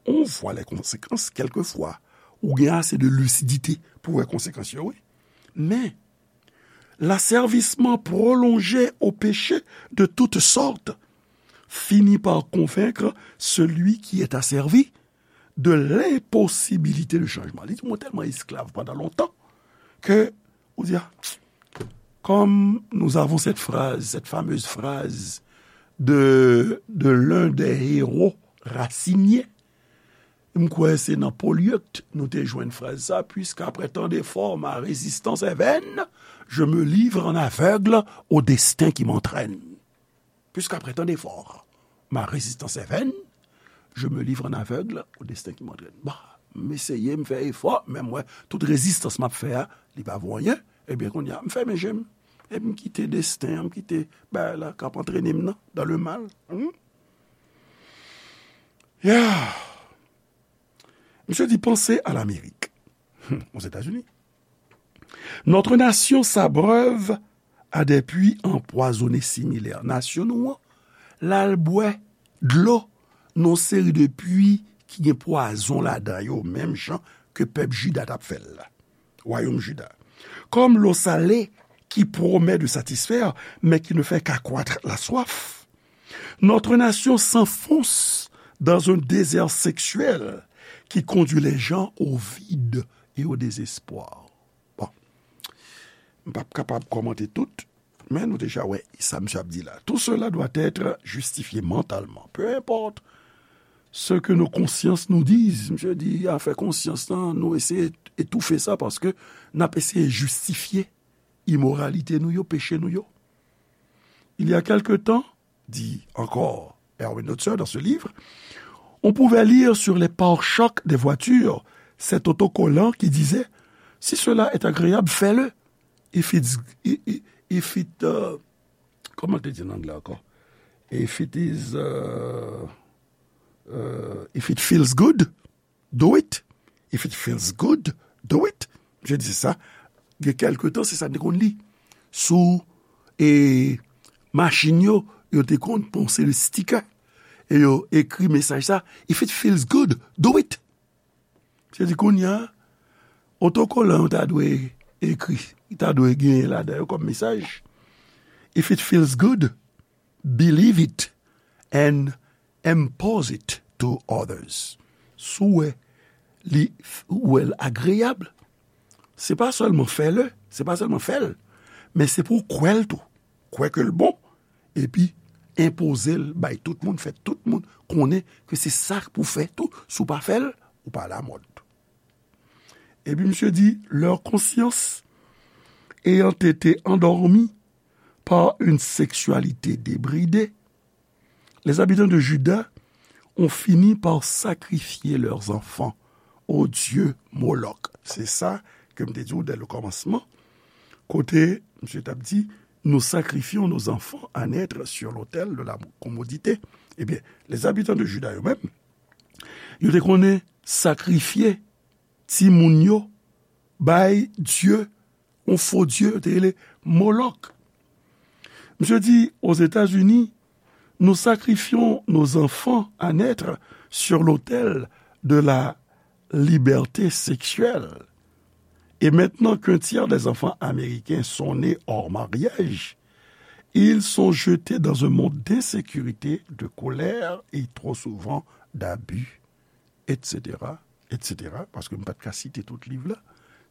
on voit les conséquences quelquefois. Ou gen ase de lisidite pou wè konsekans yo, wi. Men, l'asservissement prolongé au péché de toutes sortes finit par convaincre celui qui est asservi de l'impossibilité de changement. Li di, mwen tèlman esklav pandan lontan ke, ou di, ah, comme nous avons cette phrase, cette fameuse phrase de, de l'un des héros raciniens, m kwè se nan Polyeucte nou te jwenn fraz sa, puisqu'après tant d'efforts, ma résistance est vaine, je me livre en aveugle au destin qui m'entraîne. Puisqu'après tant d'efforts, ma résistance est vaine, je me livre en aveugle au destin qui m'entraîne. Bah, m eseye, m fè efò, men m wè tout rezistans m ap fè a, li pa vo anyen. Ebyen, kounye a, m fèmen je m. Epi m kite desten an, m kite bagay la k ap antrene m nan, dans le mal. Hmm? Yeah. Monsieur dit, pensez à l'Amérique. Hmm, aux États-Unis. Notre nation s'abreuve à des puits empoisonnés similaires. Nasyon nou an, l al bwè dlo nan yon seri de pwi ki gen pwazon ladan yo, menm jan ke pèp Jida t ap fè l la. Wayòm Jida. Comme l'eau salée qui promet de satisfaire, mais qui ne fait qu'accroître la soif. Notre nation s'enfonce dans un désert sexuel qui conduit les gens au vide et au désespoir. Bon. M p ap kapab kòmante tout, men nou deja wè sa misye ap di la. Tout cela doit être justifié mentalement. Peu importe ce que nos consciences nous disent. Misye di, afè konsyans lan, nou eseye etoufe sa paske n ap eseye jistifye imoralite nou yo, peche nou yo. Il y a quelque temps, dit encore Erwin Lotzer dans ce livre, on pouvait lire sur les pare-chocs des voitures cet autocollant qui disait, si cela est agréable, fais-le. If it's, i- i- if it, uh, kòman te di an anglè ankò? If it is, uh, uh, if it feels good, do it. If it feels good, do it. Je dis ça. Gen kèlke tan, se sa n te konn li. Sou e, machin yo, yo te konn pran yon seri de sticker. E yo ekri mesaj sa, if it feels good, do it. Se di kounye a, otokolan yo ta dwe ekri, ta dwe genyen ladan yo kòm mesaj. If it feels good, believe it and impose it to others. Si w wè li, ou wè l agreyab, se pa sèlman fè l, se pa sèlman fè l, men se pou w kwè l tou. Kwè ke l bon, epi enpoze l bay tout moun, fè tout moun konnen ke se sa pou fè tou. Si w pa fè l, ou pa alamòd. Epi misye di, leur conscience ayant été endormie par une sexualité débridée, les habitants de Juda ont fini par sacrifier leurs enfants au dieu Moloch. Se sa ke m te di w dès le commencement, kote misye t ap di, nous sacrifions nos enfants à naître sur l'autel de la commodité. Ebyen, les habitants de Juda yo menm, yo te konnen sakrifye timoun yo bay dye, yon fo dye, yo te rele Molok. Misye di, aux États-Unis, nous sacrifions nos enfants à naître sur l'autel de la liberté sexuelle. Et maintenant qu'un tiers des enfants américains sont nés hors mariage, ils sont jetés dans un monde d'insécurité, de colère et trop souvent d'abus, et cetera, et cetera. Paske m pa t ka site tout liv la,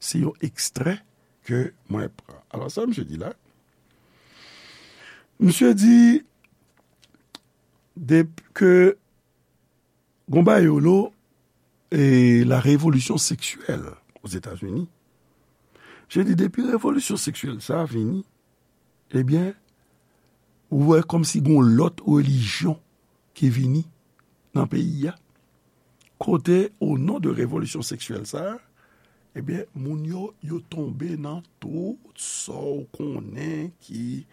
se yon ekstrè ke mwen pran. Alò, sa misye di la, misye di de, ke gon bagay yo lo, e, la révolution sexuelle aux États-Unis. Misye di depi revolisyon seksyèl sa a vini, ebyen, ou wè kòmsi gon lòt relijyon ki vini nan peyi a. Kote, o non de revolisyon seksyèl sa a, ebyen, moun yo, yo tonbe nan tout sa w konnen ki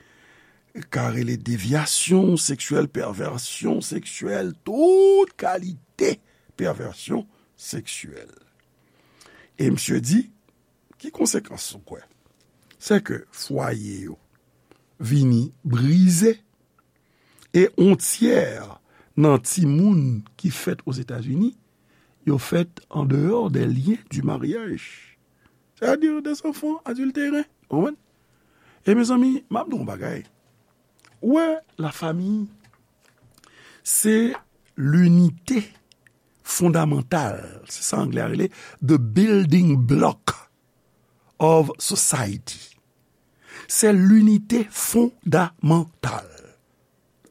ka rele devyasyon seksyèl, pèvèsyon seksyèl, tout kalite pèvèsyon seksyèl. E misye di, ki konsekans ou kwè? Se ke fwaye yo vini brize, e on tyè nan timoun ki fèt Ozetazini, yo fèt an deyò des liens du mariage. C'est-à-dire des enfants adultérés. Ou konprann? E mezanmi, m ap di w yon bagay. Ou wè, lafanmi, se linite fondamantal. Se sa anglè a rele the building block of society. Se linite fondamantal.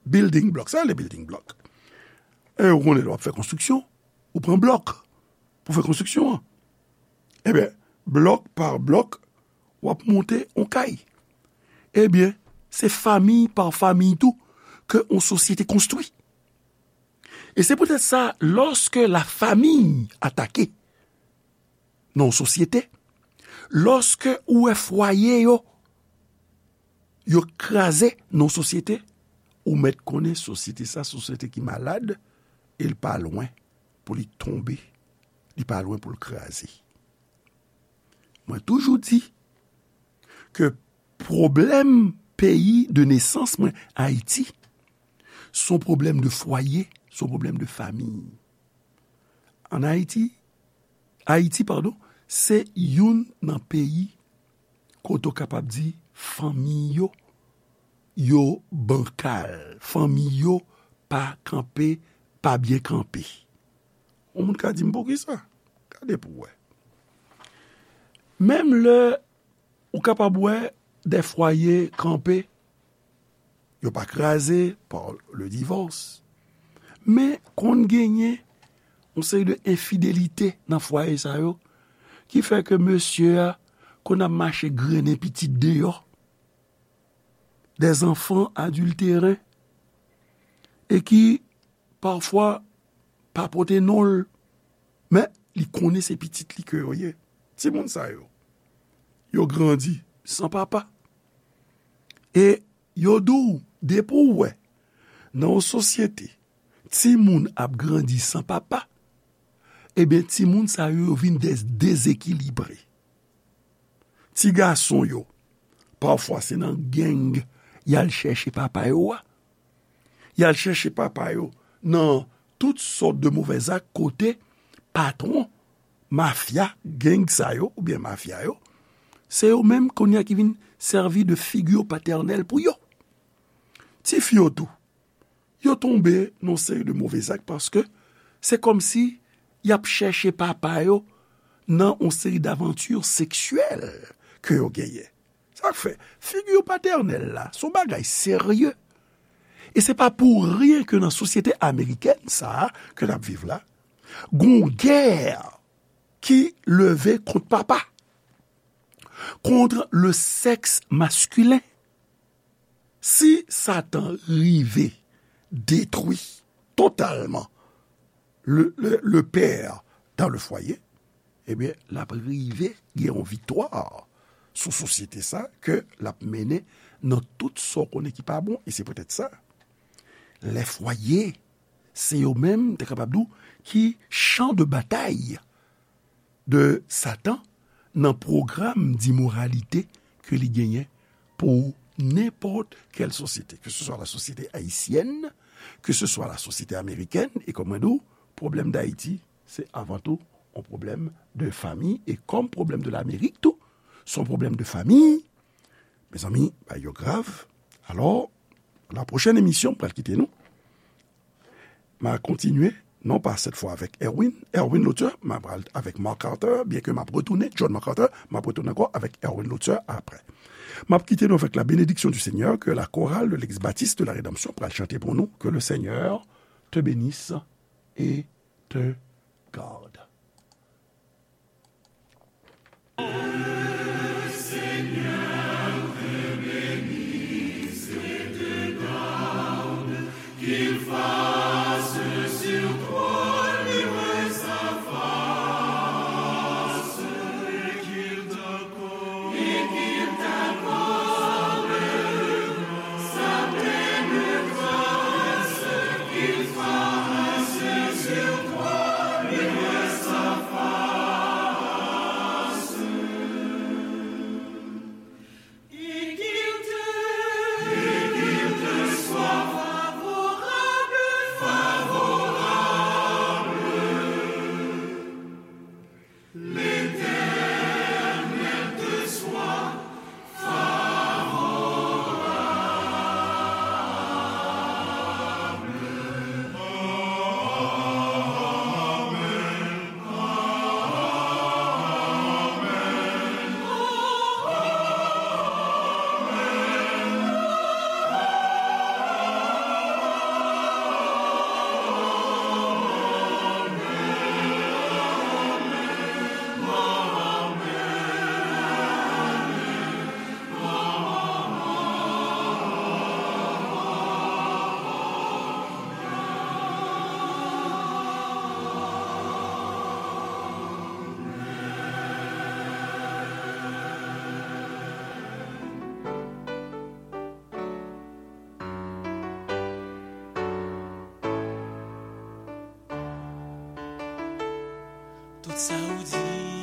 Building block. Sa rele building block. E ou konnen lè w ap fè konstriksyon, ou pran blòk pou fè konstriksyon an. Ebyen, blòk pa blòk, w ap monte on kay. Ebyen, se fanmi pa fanmi tou ke on sosyete konstwi. E se poutèt sa, lòske lafanmi atake nan on sosyete, lòske ou wè fwaye yo, yo kraze nan on sosyete, ou mèt konnen sosyete sa, sosyete ki malad, e l pa lwen pou li tonbe, li pa lwen pou l kraze. Mwen toujou di, ke pwoblèm peyi de nesans mwen, Ayiti, se yon pwoblèm de fwaye, se yon pwoblèm de fanmi. Ann Ayiti, Ayiti, padon, se youn nan peyi kote w kapab di fanmi yo, yo bankal, fanmi yo pa kanpe, pa byen kanpe. Yon moun ka di m poukisa? Gade pou w wè. Menm lè ou kapab wè de fwaye kanpe, yo pa kraze pa le divòs. Men konn genyen yon seri de enfidelite nan fwaye sa yo ki fè ke mesye a konn ap mache grennen pitit deyò, des enfants adultérins, e ki pafwa pa pote non l, men li konnen se pitit li ke yo ye. Timoun sa yo, yo grandi san papa. E yo di w, depi w wè nan yon sosyete, timoun ap grandi san papa, ebyen, timoun sa yo, yo vin dez-, dezekilibre. Ti gason yo, pafwa se nan gang y al chèche papa yo a. Y al chèche papa yo nan tout sòt de movèzak kote patwon mafya, gang sa yo, oubyen mafya yo, se yo menm kounye a ki vin sèvi de figi patènèl pou yo. Tifi yo tou, yo tonbe nan yon seri de movèzak paske se kòmsi y ap chèche papa yo nan yon seri davanti seksyèl ke yo genyen. Sa k fè, figi patènèl la, se yon bagay serye. E se pa pou ryen ke nan sosyete amerikèn sa a ke n ap viv la, gon gè ki leve kont papa, kont le sèks maskilen. Si Satan rive detwi totalman le, le, le père dans le foyer, ebyen, l ap rive gen yon viktwa sou sosyete sa ke l ap mennen nan tout sa w konnen ki pa bon. E se poutèt sa, lè fwaye, se yo menm, te kapab di w, ki chan de batay de Satan nan pwogram dimoralite ke li genyen pou nenpòt kèl sosyete, ke se swa la sosyete ayisyèn, ke se swa la sosyete amerikèn, e kòm mwen di w, pwoblèm Dayiti, se avan tou yon pwoblèm de fanmi, e kòm pwoblèm de Lamerik tou, se yon pwoblèm de fanmi, mezanmi, bagay yo grav. Alò, la pwochèn emisyon, m pral kite nou. M a kontinye, non pa sèt fwa avèk Erwin, Erwin Lotè, m a pral avèk Mark Carter, byen ke m ap retounen, John Mark Carter, m ap retounen ankò avèk Erwin Lotè aprè. M ap kite nou avèk la bénédiction du Seigneur, ke la chorale de l'Église Baptiste de la Rédemption pral chante pou nou, que le Seigneur te bénisse et te garde. Tout sa ou di